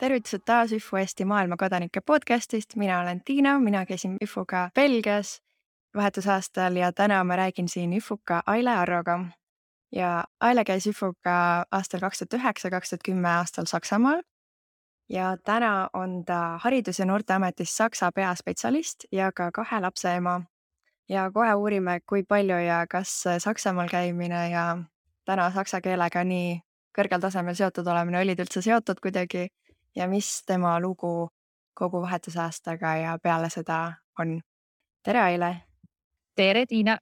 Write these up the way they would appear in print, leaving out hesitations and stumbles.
Tervitused taas Üfu Eesti maailmakodanike podcastist. Mina olen Tiina, mina käisin Üfuga Belgias vahetusaastal ja täna ma räägin siin Üfuga Aile Arroga. Ja Aile käis Üfuga aastal 2009-2010 aastal Saksamaal ja täna on ta Haridus- ja Noorteametis Saksa peaspetsialist ja ka 2 lapse ema. Ja kohe uurime, kui palju ja kas Saksamaal käimine ja täna saksa keelega nii kõrgel tasemel seotud olemine olid üldse seotud kuidagi ja mis tema lugu kogu vahetusaastaga ja peale seda on. Tere, Aile! Tere, Tiina!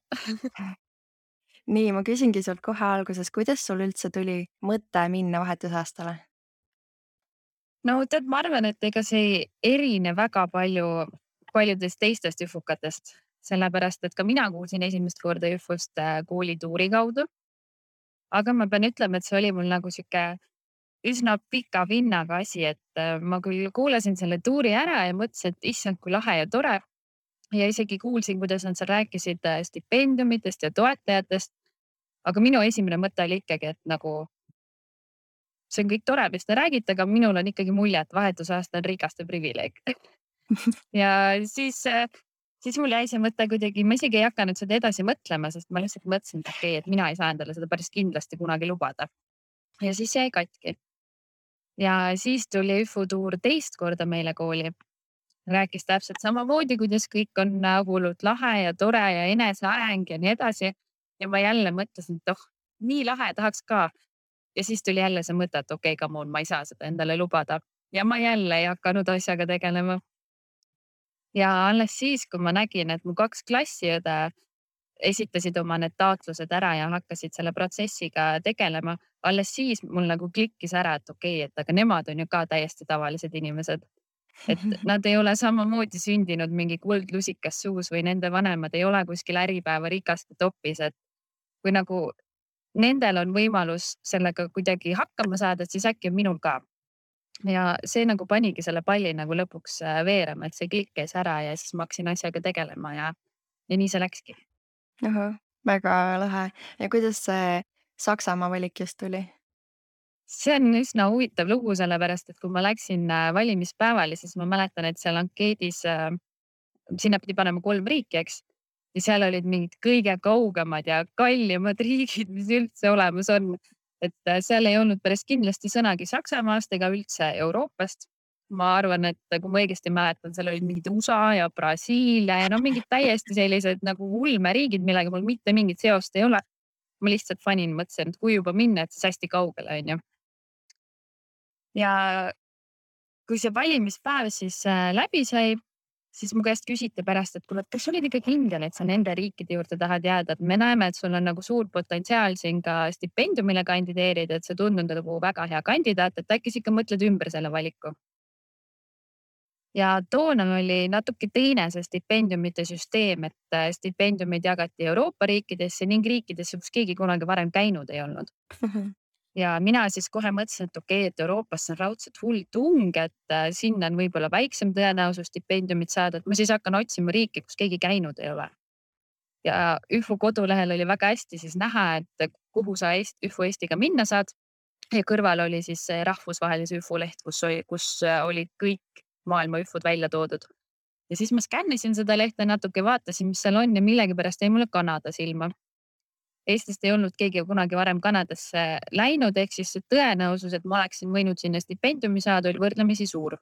Nii, ma küsingi sult kohe alguses, kuidas sul üldse tuli mõte minna vahetusaastale? No tead, ma arvan, et ega see ei erine väga palju paljudest teistest üfukatest, sellepärast et ka mina kuulsin esimest korda üfust koolituuri kaudu. Aga ma pean ütlema, et see oli mul nagu sihuke üsna pika vinnaga asi, et ma küll kuulasin selle tuuri ära ja mõtlesin, et issand, kui lahe ja tore. Ja isegi kuulsin, kuidas nad seal rääkisid stipendiumitest ja toetajatest. Aga minu esimene mõte oli ikkagi, et nagu see on kõik tore, mis te räägite, aga minul on ikkagi mulje, et vahetusaasta on rikaste privileeg. Ja siis mul jäi see mõte kuidagi, ma isegi ei hakanud seda edasi mõtlema, sest ma lihtsalt mõtlesin, et okei, et mina ei saa endale seda päris kindlasti kunagi lubada. Ja siis jäi katki. Ja siis tuli Üfu tuur teist korda meile kooli. Rääkis täpselt samamoodi, kuidas kõik on hullult lahe ja tore ja eneseareng ja nii edasi. Ja ma jälle mõtlesin, et nii lahe, tahaks ka. Ja siis tuli jälle see mõte, et okei, come on, ma ei saa seda endale lubada. Ja ma jälle ei hakanud asjaga tegelema. Ja alles siis, kui ma nägin, et mu 2 klassiõde esitasid oma need taotlused ära ja hakkasid selle protsessiga tegelema, alles siis mul nagu klikkis ära, et okei, et aga nemad on ju ka täiesti tavalised inimesed. Et nad ei ole samamoodi sündinud mingi kuldlusikas suus või nende vanemad ei ole kuskil Äripäeva rikaste topis, et kui nagu nendel on võimalus sellega kuidagi hakkama saada, et siis äkki on minul ka. Ja see nagu panigi selle palli nagu lõpuks veerema, et see klikk käis ära ja siis ma hakkasin asjaga tegelema ja nii see läkski. Ahah, väga lahe. Ja kuidas see Saksamaa valik just tuli? See on üsna huvitav lugu, sellepärast et kui ma läksin valimispäevale, siis ma mäletan, et seal ankeedis sinna pidi panema 3 riiki, eks. Ja seal olid mingid kõige kaugemad ja kallimad riigid, mis üldse olemas on. Et seal ei olnud päris kindlasti sõnagi Saksamaast ega üldse Euroopast. Ma arvan, et kui ma õigesti mäletan, seal olid mingid USA ja Brasiilia ja mingid täiesti sellised nagu ulmeriigid, millega mul mitte mingit seost ei ole. Ma lihtsalt fanin, mõtlesin, et kui juba minna, et siis hästi kaugele, on ju. Ja kui see valimispäev siis läbi sai, siis mu käest küsiti pärast, et kuule, kas olid ikka kindel, et sa nende riikide juurde tahad jääda, et me näeme, et sul on nagu suur potentsiaal siin ka stipendiumile kandideerida, et see tundub nagu väga hea kandidaat, et äkki sa ikka mõtled ümber selle valiku. Ja toona oli natuke teine see stipendiumite süsteem, et stipendiumid jagati Euroopa riikidesse ning riikidesse, kus keegi kunagi varem käinud ei olnud. Ja mina siis kohe mõtlesin, et okei, et Euroopasse on raudselt hull tung, et sinna on võib-olla väiksem tõenäosus stipendiumit saada, et ma siis hakkan otsima riiki, kus keegi käinud ei ole. Ja Üfu kodulehel oli väga hästi siis näha, et kuhu sa Üfu Eestiga minna saad. Ja kõrval oli siis see rahvusvahelise Üfu leht, kus olid kõik maailma Üfud välja toodud. Ja siis ma skännisin seda lehte natuke, vaatasin, mis seal on ja millegipärast jäi mulle Kanada silma. Eestist ei olnud keegi kunagi varem Kanadasse läinud, ehk siis see tõenäosus, et ma oleksin võinud sinna stipendiumi saada, oli võrdlemisi suur.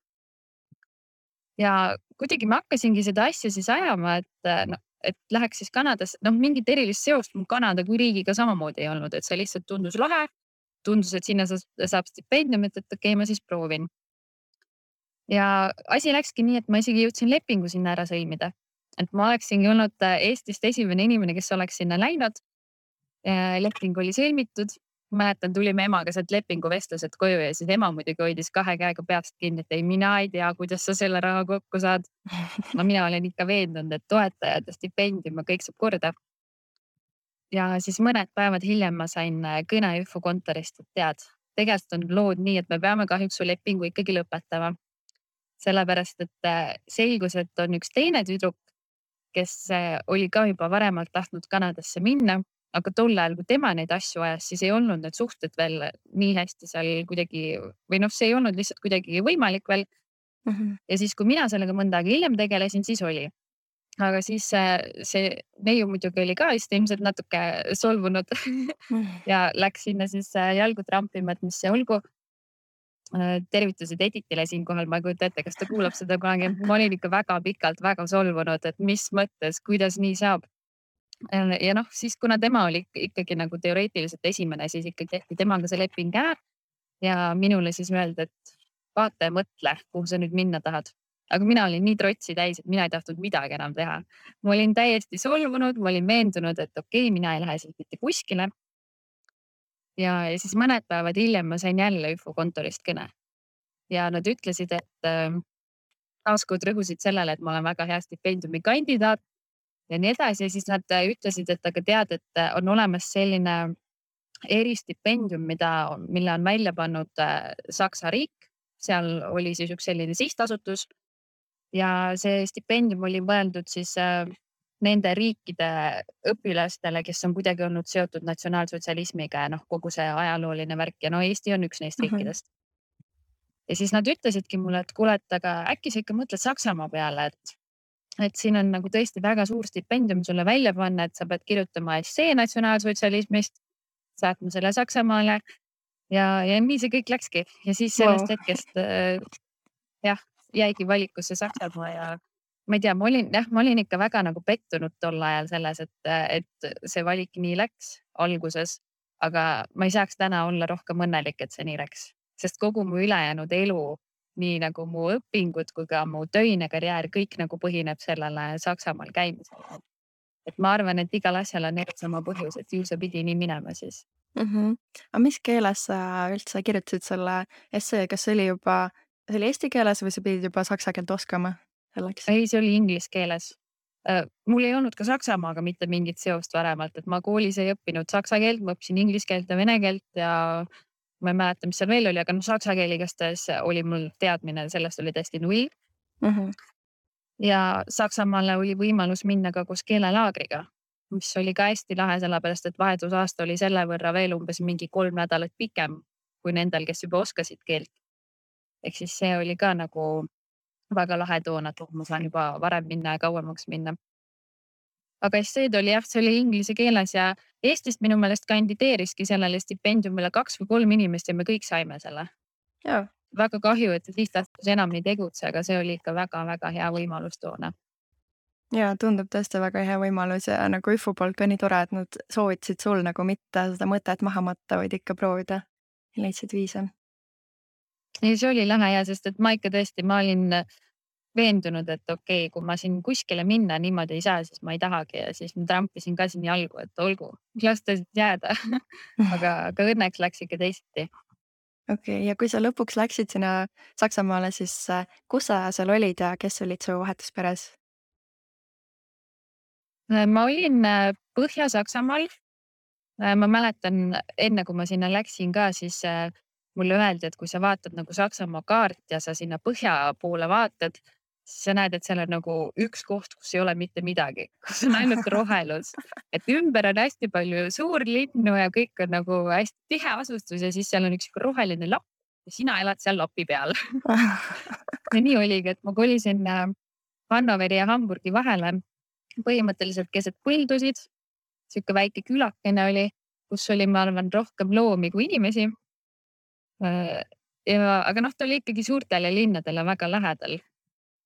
Ja kuidagi ma hakkasingi seda asja siis ajama, et läheks siis Kanadasse, mingit erilist seost mul Kanada kui riigiga samamoodi ei olnud, et see lihtsalt tundus lahe. Tundus, et sinna saab stipendiumit, et okei, ma siis proovin. Ja asi läkski nii, et ma isegi jõudsin lepingu sinna ära sõlmida. Et ma oleksingi olnud Eestist esimene inimene, kes oleks sinna läinud. Leping oli sõlmitud. Mäletan, tulime emaga sealt lepinguvestlused koju ja siis ema muidugi hoidis 2 käega peast kinni, et ei, mina ei tea, kuidas sa selle raha kokku saad. No mina olen ikka veendunud, et toetajad ja stipendium ja kõik saab korda. Ja siis mõned päevad hiljem ma sain kõne Üfu kontorist, et tead, tegelikult on lood nii, et me peame kahjuks su lepingu ikkagi lõpetama. Sellepärast, et selgus, et on üks teine tüdruk, kes oli ka juba varemalt tahtnud Kanadasse minna aga tol ajal, kui tema neid asju ajas, siis ei olnud need suhted veel nii hästi seal kuidagi või noh, see ei olnud lihtsalt kuidagi võimalik veel. Ja siis, kui mina sellega mõnda aega hiljem tegelesin, siis oli. Aga siis see neiu muidugi oli ka vist ilmselt natuke solvunud ja läks sinna siis jalgu trampima, et mis see olgu. Tervitused Editile siinkohal, ma ei kujuta ette, kas ta kuulab seda kunagi. Ma olin ikka väga pikalt väga solvunud, et mis mõttes, kuidas nii saab. Ja noh, siis kuna tema oli ikkagi nagu teoreetiliselt esimene, siis ikkagi tehti temaga see leping ära ja minule siis öeldi, et vaata ja mõtle, kuhu sa nüüd minna tahad. Aga mina olin nii trotsi täis, et mina ei tahtnud midagi enam teha. Ma olin täiesti solvunud, ma olin veendunud, et okei, mina ei lähe siit mitte kuskile. Ja siis mõned päevad hiljem ma sain jälle ÜFO kontorist kõne ja nad ütlesid, et taaskord rõhusid sellele, et ma olen väga hea stipendiumi kandidaat ja nii edasi. Ja siis nad ütlesid, et aga tead, et on olemas selline eristipendium, mille on välja pannud Saksa riik. Seal oli siis üks selline sihtasutus ja see stipendium oli mõeldud siis nende riikide õpilastele, kes on kuidagi olnud seotud natsionaalsotsialismiga ja noh, kogu see ajalooline värk ja no Eesti on üks neist riikidest. Ja siis nad ütlesidki mulle, et kuule, et aga äkki sa ikka mõtled Saksamaa peale, et siin on nagu tõesti väga suur stipendium sulle välja panna, et sa pead kirjutama essee natsionaalsotsialismist, saatma selle Saksamaale ja nii see kõik läkski. Ja siis sellest hetkest jah, jäigi valikusse Saksamaa ja ma ei tea, ma olin ikka väga nagu pettunud tol ajal selles, et see valik nii läks alguses, aga ma ei saaks täna olla rohkem õnnelik, et see nii läks, sest kogu mu ülejäänud elu, nii nagu mu õpingud kui ka mu töine karjäär, kõik nagu põhineb sellele Saksamaal käimisele. Et ma arvan, et igal asjal on sama põhjus, et ju see pidi nii minema siis. Aga mis keeles sa üldse kirjutasid selle essee, kas see oli eesti keeles või sa pidid juba saksa keelt oskama selleks? Ei, see oli inglise keeles. Mul ei olnud ka Saksamaaga mitte mingit seost varemalt, et ma koolis ei õppinud saksa keelt, ma õppisin inglise keelt ja vene keelt ja ma ei mäleta, mis seal veel oli, aga noh, saksa keel igastahes oli mul teadmine, sellest oli täiesti null. Ja Saksamaale oli võimalus minna ka koos keelelaagriga, mis oli ka hästi lahe, sellepärast et vahetusaasta oli selle võrra veel umbes mingi 3 nädalat pikem kui nendel, kes juba oskasid keelt. Ehk siis see oli ka nagu väga lahe toona, et ma saan juba varem minna ja kauemaks minna. Aga esseed oli jah, see oli inglise keeles ja Eestist minu meelest kandideeriski sellele stipendiumile 2 või 3 inimest ja me kõik saime selle. Jaa. Väga kahju, et see sihtasutus enam ei tegutse, aga see oli ikka väga-väga hea võimalus toona. Jaa, tundub tõesti väga hea võimalus ja nagu ÜFO poolt ka nii tore, et nad soovitasid sul nagu mitte seda mõtet maha matta, vaid ikka proovida ja leidsid viise. Ja see oli lahe ja sest, et ma ikka tõesti, ma olin veendunud, et okei, kui ma siin kuskile minna niimoodi ei saa, siis ma ei tahagi ja siis ma trampisin ka siin jalgu, et olgu, las ta jääda. aga õnneks läks ikka teisiti. Okei, ja kui sa lõpuks läksid sinna Saksamaale, siis kus sa seal olid ja kes olid su vahetusperes? Ma olin Põhja-Saksamaal. Ma mäletan enne, kui ma sinna läksin ka, siis mulle öeldi, et kui sa vaatad nagu Saksamaa kaart ja sa sinna põhja poole vaatad, siis sa näed, et seal on nagu üks koht, kus ei ole mitte midagi, kus on ainult rohelus. Et ümber on hästi palju suurlinnu ja kõik on nagu hästi tihe asustus ja siis seal on üks roheline lapp ja sina elad seal lapi peal. Ja nii oligi, et ma kolisin Hannoveri ja Hamburgi vahele põhimõtteliselt keset põldusid. Siuke väike külakene oli, kus oli, ma arvan, rohkem loomi kui inimesi. Aga noh, ta oli ikkagi suurtele linnadele väga lähedal.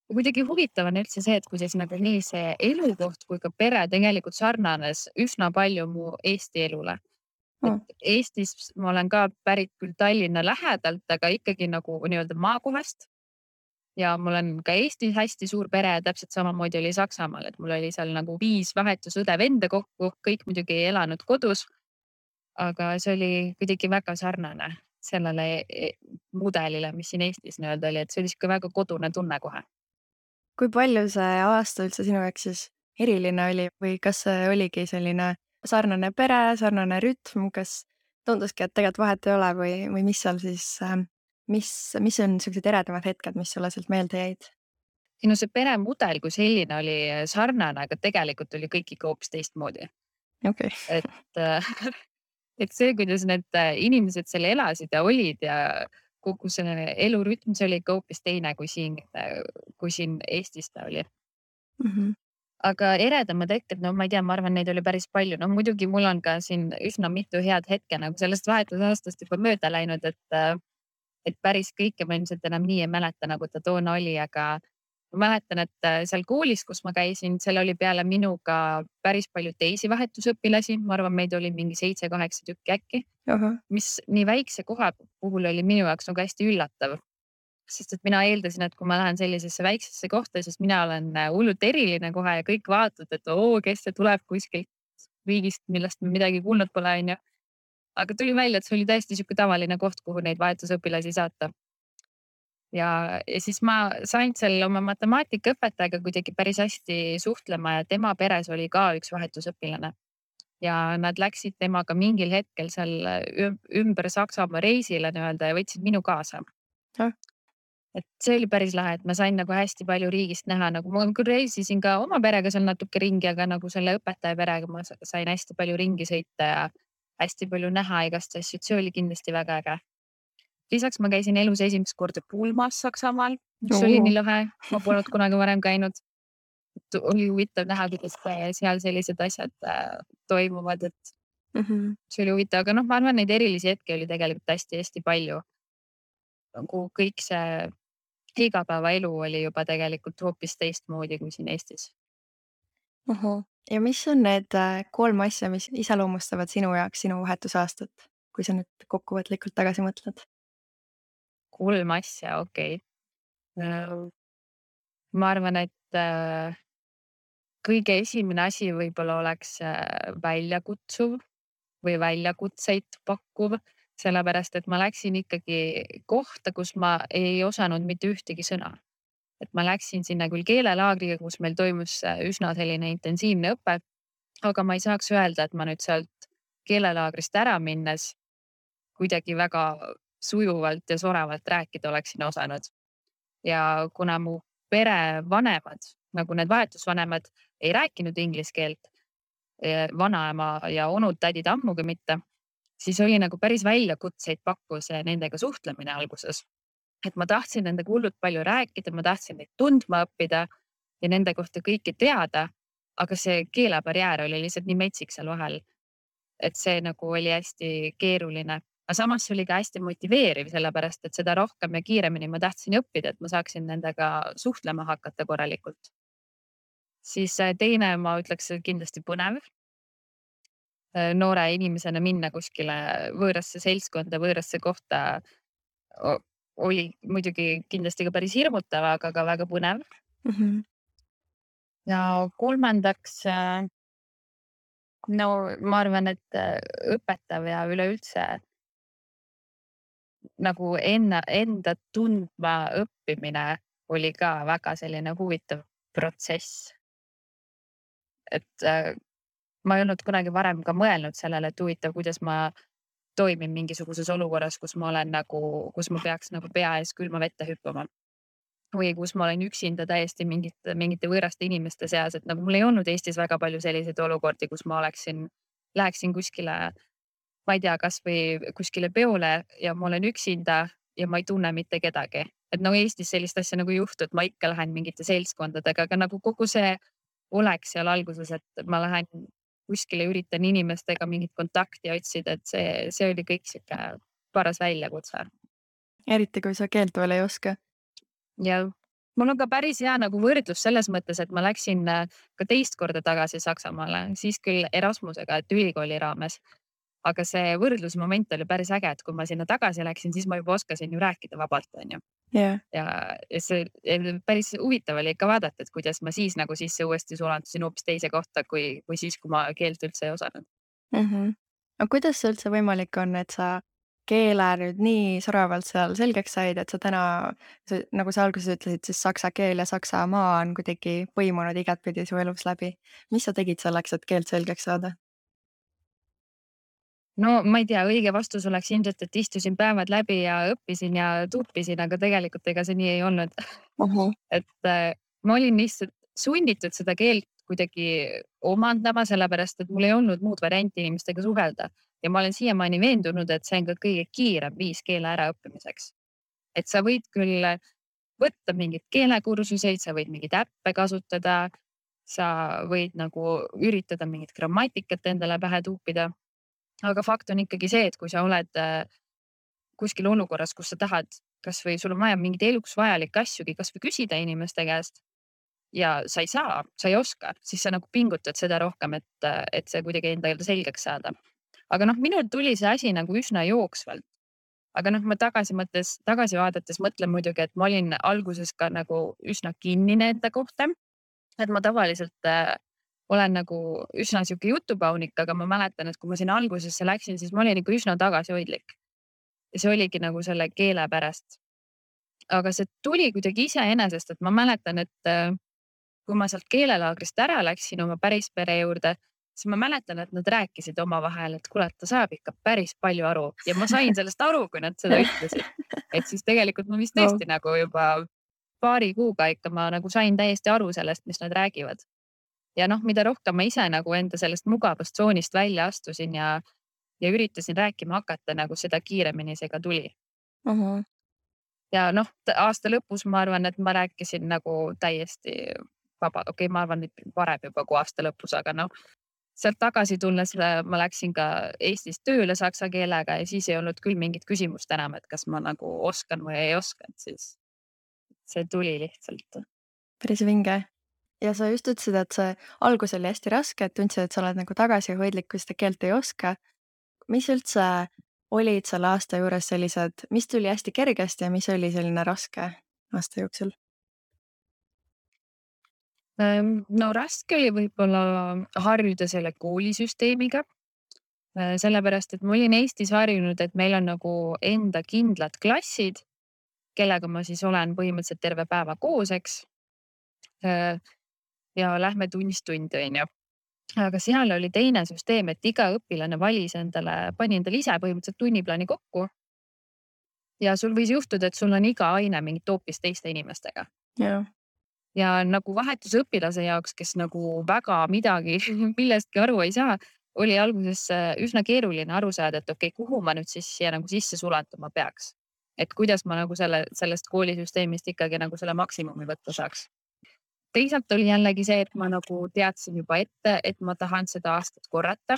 Ja kuidagi huvitav on üldse see, et kuidas nagu nii see elukoht kui ka pere tegelikult sarnanes üsna palju mu Eesti elule. Et Eestis ma olen ka pärit küll Tallinna lähedalt, aga ikkagi nagu nii-öelda maakohast. Ja mul on ka Eestis hästi suur pere ja täpselt samamoodi oli Saksamaal, et mul oli seal nagu 5 vahetusõde venda kokku, kõik muidugi ei elanud kodus. Aga see oli kuidagi väga sarnane sellele mudelile, mis siin Eestis nii-öelda oli, et see oli siuke väga kodune tunne kohe. Kui palju see aasta üldse sinu jaoks siis eriline oli või kas see oligi selline sarnane pere, sarnane rütm, kas tunduski, et tegelikult vahet ei ole või mis seal siis, mis on sellised eredamad hetked, mis sulle sealt meelde jäid? No see peremudel kui selline oli sarnane, aga tegelikult oli kõik ikka hoopis teistmoodi. okei. et et see, kuidas need inimesed seal elasid ja olid ja kogu see elurütm, see oli ikka hoopis teine kui siin Eestis ta oli. Mhm. Aga eredamad hetked, no ma ei tea, ma arvan, neid oli päris palju. No muidugi mul on ka siin üsna mitu head hetke nagu sellest vahetusaastast juba mööda läinud, et päris kõike ma ilmselt enam nii ei mäleta, nagu ta toona oli, aga ma mäletan, et seal koolis, kus ma käisin, seal oli peale minuga päris palju teisi vahetusõpilasi. Ma arvan, meid oli mingi 7-8 tükki äkki, Ahah. mis nii väikse koha puhul oli minu jaoks nagu hästi üllatav. Sest et mina eeldasin, et kui ma lähen sellisesse väiksesse kohta, siis mina olen hullult eriline kohe ja kõik vaatavad, et oo, kes see tuleb kuskilt riigist, millest me midagi kuulnud pole, onju. Aga tuli välja, et see oli täiesti sihuke tavaline koht, kuhu neid vahetusõpilasi saata. Ja siis ma sain seal oma matemaatikaõpetajaga kuidagi päris hästi suhtlema ja tema peres oli ka üks vahetusõpilane. Ja nad läksid temaga mingil hetkel seal ümber Saksamaa reisile nii-öelda ja võtsid minu kaasa. Ah. Et see oli päris lahe, et ma sain nagu hästi palju riigist näha, nagu ma küll reisisin ka oma perega seal natuke ringi, aga nagu selle õpetaja perega ma sain hästi palju ringi sõita ja hästi palju näha igast asju, et see oli kindlasti väga äge. Lisaks ma käisin elus esimest korda pulmas Saksamaal, mis oli nii lahe, ma polnud kunagi varem käinud. Oli huvitav näha, kuidas seal sellised asjad toimuvad, et see oli huvitav, aga noh, ma arvan, neid erilisi hetki oli tegelikult hästi-hästi palju. Nagu kõik see igapäevaelu oli juba tegelikult hoopis teistmoodi kui siin Eestis. Ahah. Ja mis on need 3 asja, mis iseloomustavad sinu jaoks sinu vahetusaastat, kui sa nüüd kokkuvõtlikult tagasi mõtled? 3 asja, okei. Ma arvan, et kõige esimene asi võib-olla oleks väljakutsuv või väljakutseid pakkuv, sellepärast et ma läksin ikkagi kohta, kus ma ei osanud mitte ühtegi sõna. Et ma läksin sinna küll keelelaagriga, kus meil toimus üsna selline intensiivne õpe, aga ma ei saaks öelda, et ma nüüd sealt keelelaagrist ära minnes kuidagi väga sujuvalt ja soravalt rääkida oleksin osanud. Ja kuna mu perevanemad, nagu need vahetusvanemad, ei rääkinud inglise keelt, vanaema ja onud-tädid ammugi mitte, siis oli nagu päris väljakutseid pakkus nendega suhtlemine alguses. Et ma tahtsin nendega hullult palju rääkida, ma tahtsin neid tundma õppida ja nende kohta kõike teada, aga see keelebarjäär oli lihtsalt nii metsik seal vahel, et see nagu oli hästi keeruline. Aga samas oli ka hästi motiveeriv, sellepärast et seda rohkem ja kiiremini ma tahtsin õppida, et ma saaksin nendega suhtlema hakata korralikult. Siis teine, ma ütleks, kindlasti põnev. Noore inimesena minna kuskile võõrasse seltskonda, võõrasse kohta oli muidugi kindlasti ka päris hirmutav, aga ka väga põnev. Ja kolmandaks, no ma arvan, et õpetav ja üleüldse nagu enda tundma õppimine oli ka väga selline huvitav protsess. Et ma ei olnud kunagi varem ka mõelnud sellele, et huvitav, kuidas ma toimin mingisuguses olukorras, kus ma peaks nagu pea ees külma vette hüppama. Või kus ma olen üksinda täiesti mingite võõraste inimeste seas, et nagu mul ei olnud Eestis väga palju selliseid olukordi, kus ma läheksin kuskile, ma ei tea, kasvõi kuskile peole ja ma olen üksinda ja ma ei tunne mitte kedagi. Et no Eestis sellist asja nagu ei juhtu, et ma ikka lähen mingite seltskondadega, aga nagu kogu see oleks seal alguses, et ma lähen kuskile, üritan inimestega mingit kontakti otsida, et see oli kõik sihuke paras väljakutse. Eriti kui sa keelt veel ei oska. Ja mul on ka päris hea nagu võrdlus selles mõttes, et ma läksin ka teist korda tagasi Saksamaale, siis küll Erasmusega, et ülikooli raames. Aga see võrdlusmoment oli päris äge, et kui ma sinna tagasi läksin, siis ma juba oskasin ju rääkida vabalt, onju. Yeah. Ja see päris huvitav oli ikka vaadata, et kuidas ma siis nagu sisse uuesti sulandusin hoopis teise kohta, kui siis, kui ma keelt üldse ei osanud. Aga kuidas see üldse võimalik on, et sa keele nüüd nii soravalt seal selgeks said, et sa täna, nagu sa alguses ütlesid, siis saksa keel ja Saksamaa on kuidagi põimunud igatpidi su elus läbi. Mis sa tegid selleks, et keelt selgeks saada? No ma ei tea, õige vastus oleks ilmselt, et istusin päevad läbi ja õppisin ja tuupisin, aga tegelikult ega see nii ei olnud. Et ma olin lihtsalt sunnitud seda keelt kuidagi omandama, sellepärast et mul ei olnud muud varianti inimestega suhelda. Ja ma olen siiamaani veendunud, et see on ka kõige kiirem viis keele äraõppimiseks. Et sa võid küll võtta mingeid keelekursuseid, sa võid mingeid äppe kasutada, sa võid nagu üritada mingit grammatikat endale pähe tuupida. Aga fakt on ikkagi see, et kui sa oled kuskil olukorras, kus sa tahad, kasvõi sul on vaja mingeid eluks vajalikke asjugi, kasvõi küsida inimeste käest ja sa ei oska, siis sa nagu pingutad seda rohkem, et see kuidagi endale selgeks saada. Aga noh, minul tuli see asi nagu üsna jooksvalt. Aga noh, ma tagasi vaadates mõtlen muidugi, et ma olin alguses ka nagu üsna kinnine enda kohta. Et ma tavaliselt olen nagu üsna sihuke jutupaunik, aga ma mäletan, et kui ma sinna algusesse läksin, siis ma olin ikka üsna tagasihoidlik. Ja see oligi nagu selle keele pärast. Aga see tuli kuidagi iseenesest, et ma mäletan, et kui ma sealt keelelaagrist ära läksin oma päris pere juurde, siis ma mäletan, et nad rääkisid omavahel, et kuule, ta saab ikka päris palju aru ja ma sain sellest aru, kui nad seda ütlesid. Et siis tegelikult ma vist tõesti nagu juba paari kuuga ikka ma nagu sain täiesti aru sellest, mis nad räägivad. Ja noh, mida rohkem ma ise nagu enda sellest mugavustsoonist välja astusin ja üritasin rääkima hakata, nagu seda kiiremini see ka tuli. Ja noh, aasta lõpus ma arvan, et ma rääkisin nagu täiesti vaba. Okei, ma arvan, et varem juba kui aasta lõpus, aga noh, sealt tagasi tulles ma läksin ka Eestis tööle saksa keelega ja siis ei olnud küll mingit küsimust enam, et kas ma nagu oskan või ei oska, et siis see tuli lihtsalt. Päris vinge. Ja sa just ütlesid, et see algus oli hästi raske, et tundsid, et sa oled nagu tagasihoidlik, kui seda keelt ei oska. Mis üldse olid selle aasta juures sellised, mis tuli hästi kergesti ja mis oli selline raske aasta jooksul? No raske oli võib-olla harjuda selle koolisüsteemiga. Sellepärast, et ma olin Eestis harjunud, et meil on nagu enda kindlad klassid, kellega ma siis olen põhimõtteliselt terve päeva koos, eks. Ja lähme tunnist tundi, on ju. Aga seal oli teine süsteem, et iga õpilane pani endale ise põhimõtteliselt tunniplaani kokku. Ja sul võis juhtuda, et sul on iga aine mingit hoopis teiste inimestega. Ja nagu vahetusõpilase jaoks, kes nagu väga midagi millestki aru ei saa, oli alguses üsna keeruline aru saada, et okei, kuhu ma nüüd siis siia nagu sisse sulanduma peaks. Et kuidas ma nagu sellest koolisüsteemist ikkagi nagu selle maksimumi võtta saaks. Teisalt oli jällegi see, et ma nagu teadsin juba ette, et ma tahan seda aastat korrata.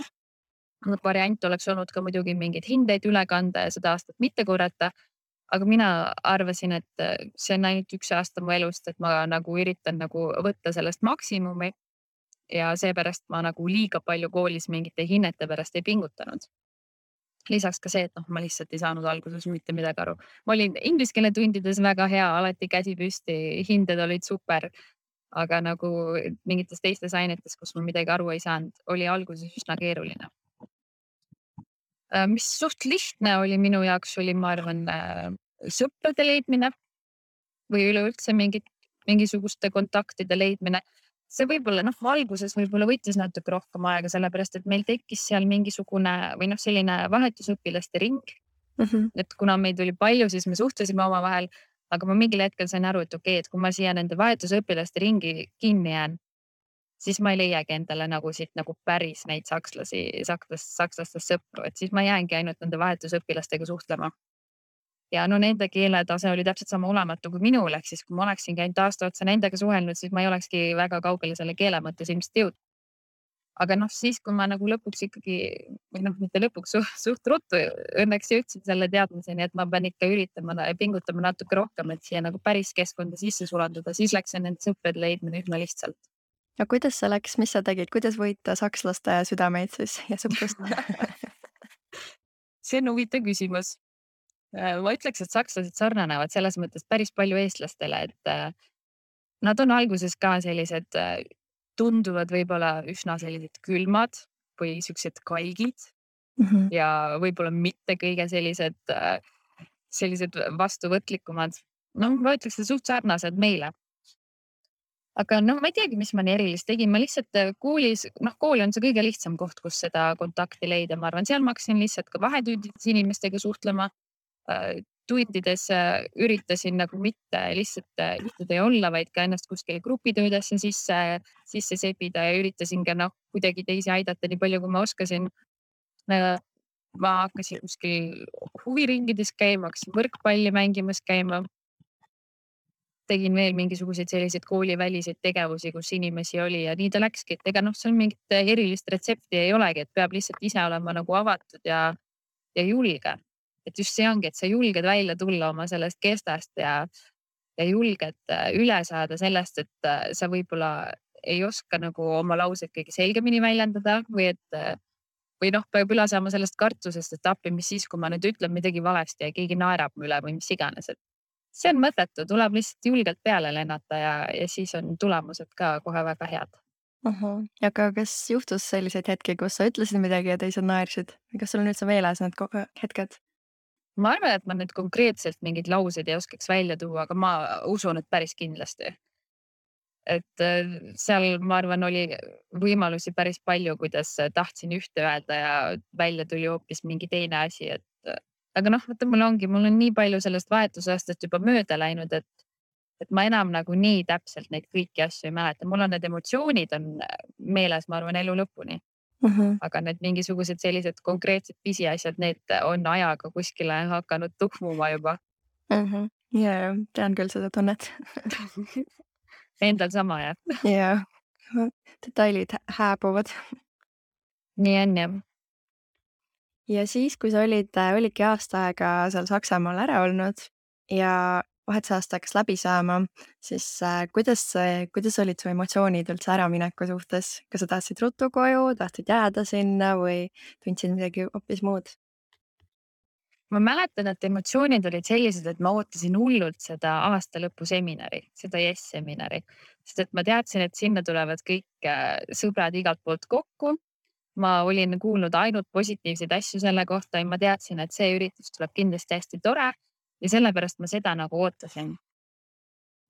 Variant oleks olnud ka muidugi mingeid hindeid üle kanda ja seda aastat mitte korrata. Aga mina arvasin, et see on ainult üks aasta mu elust, et ma nagu üritan nagu võtta sellest maksimumi. Ja seepärast ma nagu liiga palju koolis mingite hinnete pärast ei pingutanud. Lisaks ka see, et ma lihtsalt ei saanud alguses mitte midagi aru. Ma olin inglise keele tundides väga hea, alati käsi püsti, hinded olid super. Aga nagu mingites teistes ainetes, kus ma midagi aru ei saanud, oli alguses üsna keeruline. Mis suht lihtne oli minu jaoks, oli ma arvan sõprade leidmine või üleüldse mingisuguste kontaktide leidmine. See võib-olla alguses võib-olla võttis natuke rohkem aega, sellepärast, et meil tekkis seal mingisugune või selline vahetusõpilaste ring. Et kuna meid oli palju, siis me suhtlesime omavahel, aga ma mingil hetkel sain aru, et okei, et kui ma siia nende vahetusõpilaste ringi kinni jään, siis ma ei leiagi endale nagu siit nagu päris neid sakslastest sõpru, et siis ma jäängi ainult nende vahetusõpilastega suhtlema. Ja nende keeletase oli täpselt sama olematu kui minul, ehk siis kui ma oleksin käinud aasta otsa nendega suhelnud, siis ma ei olekski väga kaugele selle keele mõttes ilmselt jõudnud. Aga siis, kui ma nagu lõpuks ikkagi, või mitte lõpuks, suht ruttu õnneks jõudsin selle teadmiseni, et ma pean ikka üritama ja pingutama natuke rohkem, et siia nagu päris keskkonda sisse sulanduda, siis läks see nende sõprade leidmine üsna lihtsalt. Ja kuidas see läks, mis sa tegid, kuidas võita sakslaste südameid siis ja sõprust? See on huvitav küsimus. Ma ütleks, et sakslased sarnanevad selles mõttes päris palju eestlastele, et nad on alguses ka sellised tunduvad võib-olla üsna sellised külmad või siuksed kalgid ja võib-olla mitte kõige sellised vastuvõtlikumad. Ma ütleks, et suht sarnased meile. Aga ma ei teagi, mis ma nii erilist tegin. Ma lihtsalt koolis, kool on see kõige lihtsam koht, kus seda kontakti leida. Ma arvan, seal ma hakkasin lihtsalt ka vahetündides inimestega suhtlema. tundides üritasin nagu mitte lihtsalt istuda ja olla, vaid ka ennast kuskile grupitöödesse sisse sebida ja üritasin ka kuidagi teisi aidata nii palju, kui ma oskasin. Ma hakkasin kuskil huviringides käima, hakkasin võrkpalli mängimas käima. Tegin veel mingisuguseid selliseid kooliväliseid tegevusi, kus inimesi oli ja nii ta läkski, et ega seal mingit erilist retsepti ei olegi, et peab lihtsalt ise olema nagu avatud ja julge. Et just see ongi, et sa julged välja tulla oma sellest kestast ja julged üle saada sellest, et sa võib-olla ei oska nagu oma lauseid kõige selgemini väljendada või peab üle saama sellest kartusest, et appi, mis siis, kui ma nüüd ütlen midagi valesti ja keegi naerab mu üle või mis iganes, et see on mõttetu, tuleb lihtsalt julgelt peale lennata ja siis on tulemused ka kohe väga head. Aga kas juhtus selliseid hetki, kus sa ütlesid midagi ja teised naersid? Kas sul on üldse meeles need hetked? Ma arvan, et ma nüüd konkreetselt mingeid lauseid ei oskaks välja tuua, aga ma usun, et päris kindlasti. Et seal, ma arvan, oli võimalusi päris palju, kuidas tahtsin ühte öelda ja välja tuli hoopis mingi teine asi, aga vaata, mul on nii palju sellest vahetusaastast juba mööda läinud, et ma enam nagu nii täpselt neid kõiki asju ei mäleta. Mul on need emotsioonid on meeles, ma arvan, elu lõpuni. Aga need mingisugused sellised konkreetsed pisiasjad, need on ajaga kuskile hakanud tuhmuma juba. Ja, tean küll seda tunnet. Endal sama, jah. Ja, detailid hääbuvad. Nii on, jah. Ja siis, kui sa olidki aasta aega seal Saksamaal ära olnud ja vahetusaasta hakkas läbi saama, siis kuidas olid su emotsioonid üldse äramineku suhtes? Kas sa tahtsid ruttu koju, tahtsid jääda sinna või tundsid midagi hoopis muud? Ma mäletan, et emotsioonid olid sellised, et ma ootasin hullult seda aastalõpuseminari, seda yes-seminari, sest et ma teadsin, et sinna tulevad kõik sõbrad igalt poolt kokku. Ma olin kuulnud ainult positiivseid asju selle kohta ja ma teadsin, et see üritus tuleb kindlasti hästi tore ja sellepärast ma seda nagu ootasin.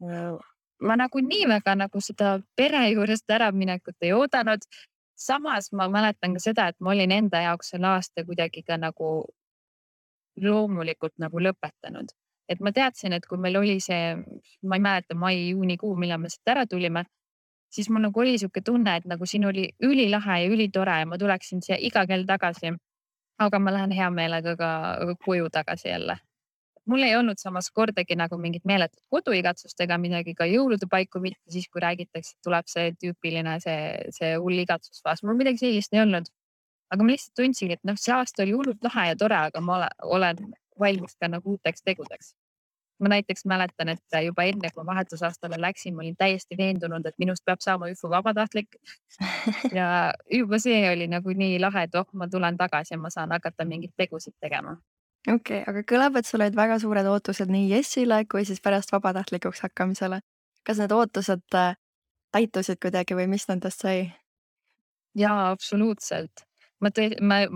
Ma nagu nii väga nagu seda pere juurest äraminekut ei oodanud. Samas ma mäletan ka seda, et ma olin enda jaoks selle aasta kuidagi ka nagu loomulikult nagu lõpetanud. Et ma teadsin, et kui meil oli see, ma ei mäleta, mai-juunikuu, millal me siit ära tulime, siis mul nagu oli siuke tunne, et nagu siin oli ülilahe ja ülitore ja ma tuleksin siia iga kell tagasi. Aga ma lähen hea meelega ka koju tagasi jälle. Mul ei olnud samas kordagi nagu mingit meeletut koduigatsust ega midagi, ka jõulude paiku mitte siis, kui räägitakse, tuleb see tüüpiline see hull igatsusfaas. Mul midagi sellist ei olnud. Aga ma lihtsalt tundsin, et see aasta oli hullult lahe ja tore, aga ma olen valmis ka nagu uuteks tegudeks. Ma näiteks mäletan, et juba enne, kui vahetusaastale läksin, ma olin täiesti veendunud, et minust peab saama ÜFO vabatahtlik. Ja juba see oli nagu nii lahe, et ma tulen tagasi ja ma saan hakata mingit tegusid tegema. Okei, aga kõlab, et sul olid väga suured ootused nii Jessile kui siis pärast vabatahtlikuks hakkamisele. Kas need ootused täitusid kuidagi või mis nendest sai? Jaa, absoluutselt. Ma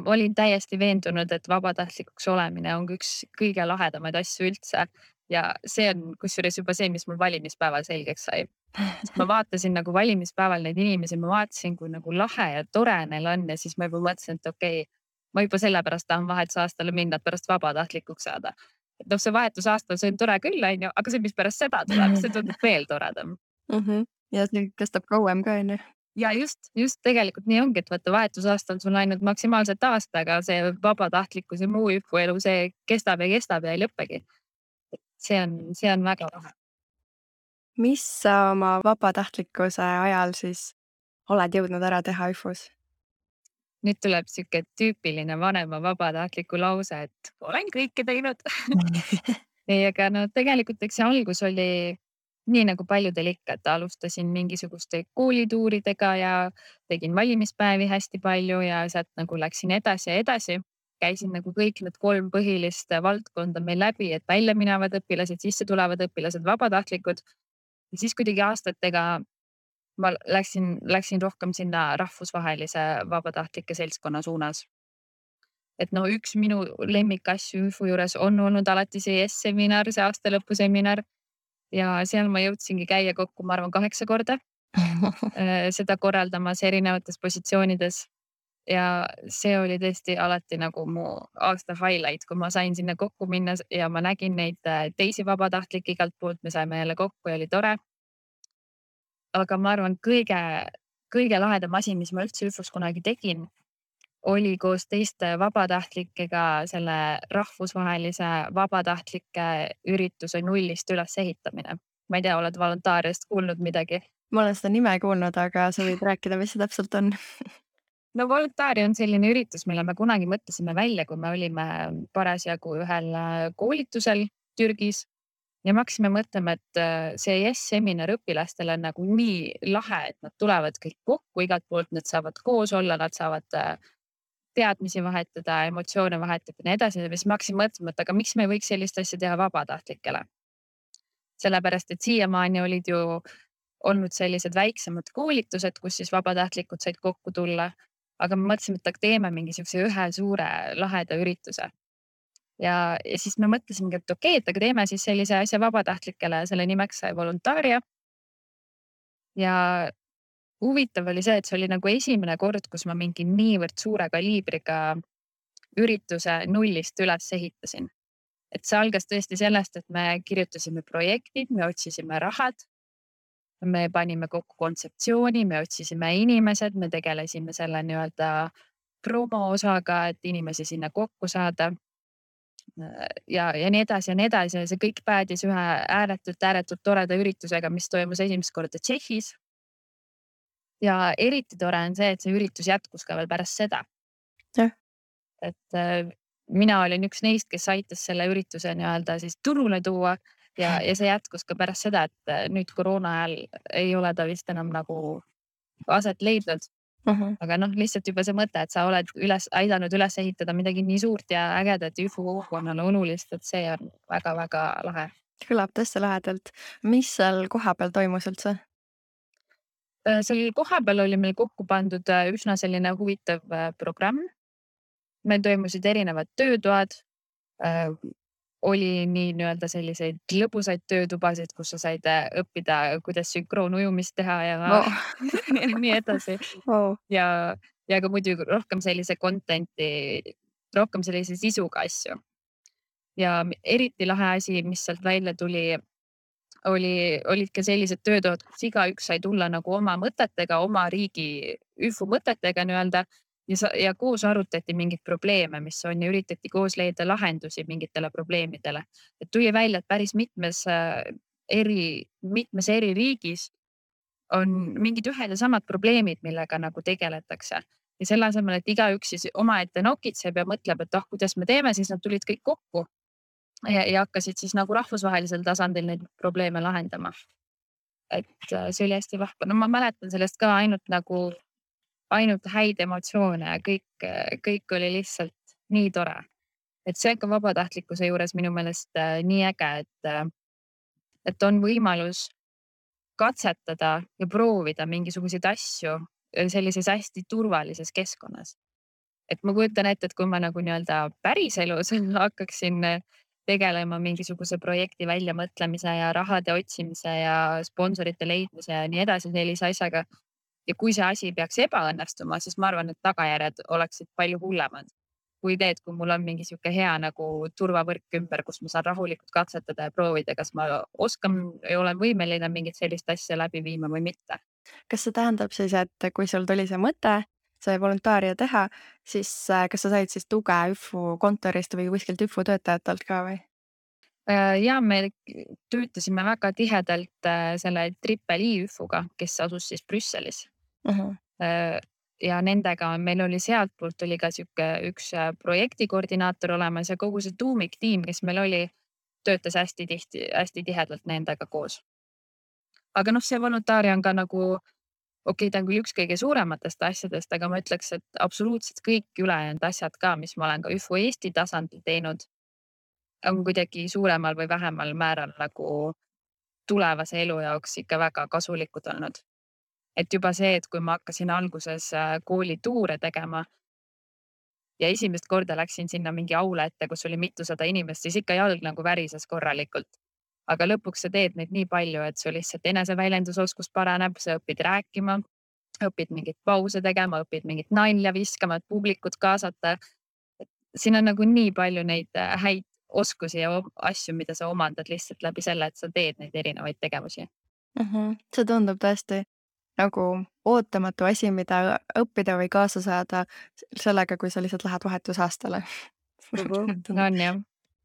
olin täiesti veendunud, et vabatahtlikuks olemine on üks kõige lahedamaid asju üldse. Ja see on kusjuures juba see, mis mul valimispäeval selgeks sai. Ma vaatasin nagu valimispäeval neid inimesi, ma vaatasin, kui nagu lahe ja tore neil on ja siis ma juba mõtlesin, et okei, ma juba sellepärast tahan vahetusaastale minna, et pärast vabatahtlikuks saada. Et see vahetusaastal see on tore küll, aga see, mis pärast seda tuleb, see tundub veel toredam. Ja see kestab kauem ka, on ju? Ja just tegelikult nii ongi, et vaata vahetusaastal sul ainult maksimaalselt aasta, aga see vabatahtlikkus ja muu ÜFO elu, see kestab ja ei lõppegi. See on väga lahe. Mis sa oma vabatahtlikkuse ajal siis oled jõudnud ära teha ÜFO-s? Nüüd tuleb siuke tüüpiline vanema vabatahtliku lause, et olen kõike teinud. Ei, aga tegelikult eks see algus oli nii nagu paljudel ikka, et alustasin mingisuguste koolituuridega ja tegin valimispäevi hästi palju ja sealt nagu läksin edasi ja edasi. Käisin nagu kõik need 3 põhilist valdkonda meil läbi, et välja minevad õpilased, sisse tulevad õpilased, vabatahtlikud. Ja siis kuidagi aastatega ma läksin rohkem sinna rahvusvahelise vabatahtlike seltskonna suunas. Et üks minu lemmikasju ÜFO juures on olnud alati see yes-seminar, see aastalõpuseminar. Ja seal ma jõudsingi käia kokku, ma arvan, 8 korda seda korraldamas erinevates positsioonides. ja see oli tõesti alati nagu mu aasta highlight, kui ma sain sinna kokku minna ja ma nägin neid teisi vabatahtlikke igalt poolt, me saime jälle kokku ja oli tore. Aga ma arvan, kõige lahedam asi, mis ma üldse ÜFO-s kunagi tegin, oli koos teiste vabatahtlikega selle rahvusvahelise vabatahtlike ürituse nullist ülesehitamine. Ma ei tea, oled voluntaariast kuulnud midagi? Ma olen seda nime kuulnud, aga sa võid rääkida, mis see täpselt on? No Voluntari on selline üritus, mille me kunagi mõtlesime välja, kui me olime parasjagu ühel koolitusel Türgis ja me hakkasime mõtlema, et see yes-seminar õpilastele on nagu nii lahe, et nad tulevad kõik kokku igalt poolt, nad saavad koos olla, nad saavad teadmisi vahetada, emotsioone vahetada ja nii edasi. Ja siis ma hakkasin mõtlema, et aga miks me ei võiks sellist asja teha vabatahtlikele? Sellepärast, et siiamaani olid ju olnud sellised väiksemad koolitused, kus siis vabatahtlikud said kokku tulla. Aga me mõtlesime, et teeme mingisuguse ühe suure laheda ürituse. Ja siis me mõtlesimegi, et okei, et aga teeme siis sellise asja vabatahtlikele, selle nimeks sai Voluntaria. Ja huvitav oli see, et see oli nagu esimene kord, kus ma mingi niivõrd suure kaliibriga ürituse nullist üles ehitasin. Et see algas tõesti sellest, et me kirjutasime projektid, me otsisime rahad. Me panime kokku kontseptsiooni, me otsisime inimesed, me tegelesime selle nii-öelda promo osaga, et inimesi sinna kokku saada. Ja nii edasi ja nii edasi. Ja see kõik päädis ühe ääretult toreda üritusega, mis toimus esimest korda Tšehhis. Ja eriti tore on see, et see üritus jätkus ka veel pärast seda. Et mina olin üks neist, kes aitas selle ürituse nii-öelda siis turule tuua. Ja see jätkus ka pärast seda, et nüüd koroona ajal ei ole ta vist enam nagu aset leidnud. Aga lihtsalt juba see mõte, et sa oled aidanud üles ehitada midagi nii suurt ja ägedat ÜFO kogukonnale olulist, et see on väga-väga lahe. Kõlab tõesti lahedalt. Mis seal kohapeal toimus üldse? Seal kohapeal oli meil kokku pandud üsna selline huvitav programm. Meil toimusid erinevad töötoad. Oli nii nii-öelda selliseid lõbusaid töötubasid, kus sa said õppida, kuidas sünkroonujumist teha ja nii edasi. Ja ka muidugi rohkem sellise content'i, rohkem sellise sisuga asju. Ja eriti lahe asi, mis sealt välja tuli, olid ka sellised töötoad, kus igaüks sai tulla nagu oma mõtetega, oma riigi ÜFO mõtetega nii-öelda. Ja koos arutati mingeid probleeme, mis on ja üritati koos leida lahendusi mingitele probleemidele. Et tuli välja, et päris mitmes eri riigis on mingid ühed ja samad probleemid, millega nagu tegeletakse. Ja selle asemel, et igaüks siis omaette nokitseb ja mõtleb, et kuidas me teeme, siis nad tulid kõik kokku ja hakkasid siis nagu rahvusvahelisel tasandil neid probleeme lahendama. Et see oli hästi vahva. No ma mäletan sellest ka ainult häid emotsioone ja kõik oli lihtsalt nii tore. Et see on ka vabatahtlikkuse juures minu meelest nii äge, et on võimalus katsetada ja proovida mingisuguseid asju sellises hästi turvalises keskkonnas. Et ma kujutan ette, et kui ma nagu nii-öelda päriselus hakkaksin tegelema mingisuguse projekti väljamõtlemise ja rahade otsimise ja sponsorite leidmise ja nii edasi sellise asjaga. Ja kui see asi peaks ebaõnnestuma, siis ma arvan, et tagajärjed oleksid palju hullemad. Kui mul on mingi sihuke hea nagu turvavõrk ümber, kus ma saan rahulikult katsetada ja proovida, kas ma oskan ja olen võimeline mingit sellist asja läbi viima või mitte. Kas see tähendab siis, et kui sul tuli see mõte, see Voluntaaria teha, siis kas sa said siis tuge ÜFO kontorist või kuskilt ÜFO töötajatelt ka või? Ja me töötasime väga tihedalt selle Triple-I ÜFO-ga, kes asus siis Brüsselis. Ja nendega meil oli sealtpoolt oli ka üks projektikoordinaator olemas ja kogu see tuumiktiim, kes meil oli, töötas hästi tihedalt nendega koos. Aga see Voluntaaria on ka nagu, okei, ta on küll üks kõige suurematest asjadest, aga ma ütleks, et absoluutselt kõik ülejäänud asjad ka, mis ma olen ka ÜFO Eesti tasandil teinud, on kuidagi suuremal või vähemal määral nagu tulevase elu jaoks ikka väga kasulikud olnud. Et juba see, et kui ma hakkasin alguses koolituure tegema ja esimest korda läksin sinna mingi aula ette, kus oli mitusada inimest, siis ikka jalg nagu värises korralikult. Aga lõpuks sa teed neid nii palju, et sul lihtsalt eneseväljendusoskus paraneb, sa õpid rääkima, õpid mingeid pause tegema, õpid mingit nalja viskama, et publikut kaasata. Siin on nagu nii palju neid häid oskusi ja asju, mida sa omandad lihtsalt läbi selle, et sa teed neid erinevaid tegevusi. See tundub tõesti nagu ootamatu asi, mida õppida või kaasa saada sellega, kui sa lihtsalt lähed vahetusaastale. On jah.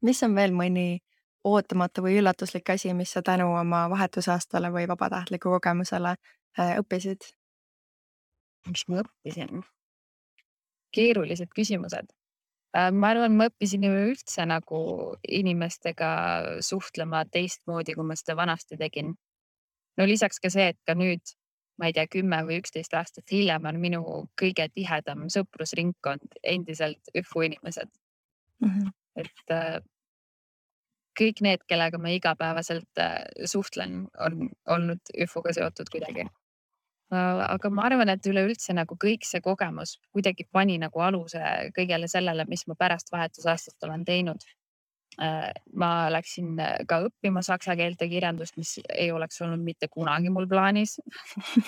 Mis on veel mõni ootamatu või üllatuslik asi, mis sa tänu oma vahetusaastale või vabatahtliku kogemusele õppisid? Mis ma õppisin? Keerulised küsimused. Ma arvan, ma õppisin ju üldse nagu inimestega suhtlema teistmoodi, kui ma seda vanasti tegin. No lisaks ka see, et ka nüüd, ma ei tea, 10 või 11 aastat hiljem on minu kõige tihedam sõprusringkond endiselt ÜFU inimesed. Et kõik need, kellega ma igapäevaselt suhtlen, on olnud ÜFU-ga seotud kuidagi. Aga ma arvan, et üleüldse nagu kõik see kogemus kuidagi pani nagu aluse kõigele sellele, mis ma pärast vahetusaastast olen teinud. Ma läksin ka õppima saksa keelt ja kirjandust, mis ei oleks olnud mitte kunagi mul plaanis.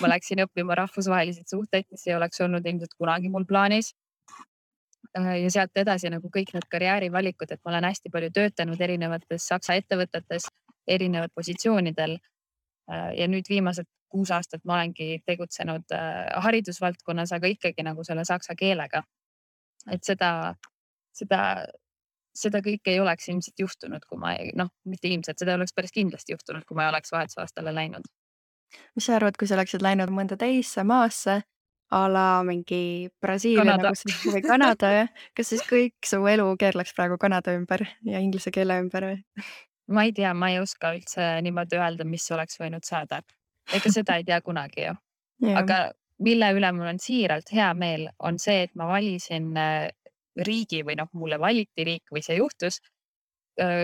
Ma läksin õppima rahvusvahelisi suhteid, mis ei oleks olnud ilmselt kunagi mul plaanis. Ja sealt edasi nagu kõik need karjäärivalikud, et ma olen hästi palju töötanud erinevates saksa ettevõtetes, erinevad positsioonidel. Ja nüüd viimased 6 aastat ma olengi tegutsenud haridusvaldkonnas, aga ikkagi nagu selle saksa keelega. Et seda kõike ei oleks ilmselt juhtunud, kui ma mitte ilmselt, seda oleks päris kindlasti juhtunud, kui ma ei oleks vahetusaastale läinud. Mis sa arvad, kui sa oleksid läinud mõnda teisse maasse, a la mingi Brasiilia Kanada. või Kanada, jah? Kas siis kõik su elu keerleks praegu Kanada ümber ja inglise keele ümber või? Ma ei tea, ma ei oska üldse niimoodi öelda, mis oleks võinud saada. Ega seda ei tea kunagi ju. Aga mille üle mul on siiralt hea meel, on see, et ma valisin riigi või mulle valiti riik või see juhtus,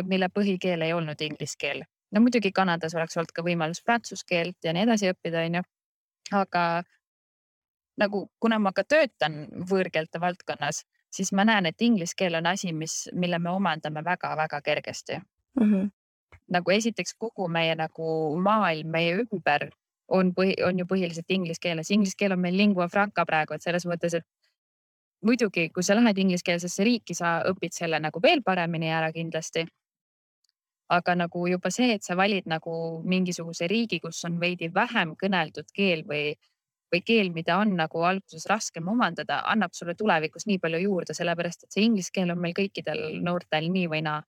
mille põhikeel ei olnud inglise keel. No muidugi Kanadas oleks olnud ka võimalus prantsuse keelt ja nii edasi õppida, on ju. Aga nagu kuna ma ka töötan võõrkeelte valdkonnas, siis ma näen, et inglise keel on asi, mille me omandame väga-väga kergesti. Nagu esiteks kogu meie nagu maailm, meie ümber on ju põhiliselt inglise keeles. Inglise keel on meil lingua franca praegu, et selles mõttes, et muidugi, kui sa lähed ingliskeelsesse riiki, sa õpid selle nagu veel paremini ära kindlasti. Aga nagu juba see, et sa valid nagu mingisuguse riigi, kus on veidi vähem kõneldud keel või keel, mida on nagu alguses raskem omandada, annab sulle tulevikus nii palju juurde, sellepärast et see inglise keel on meil kõikidel noortel nii või naa.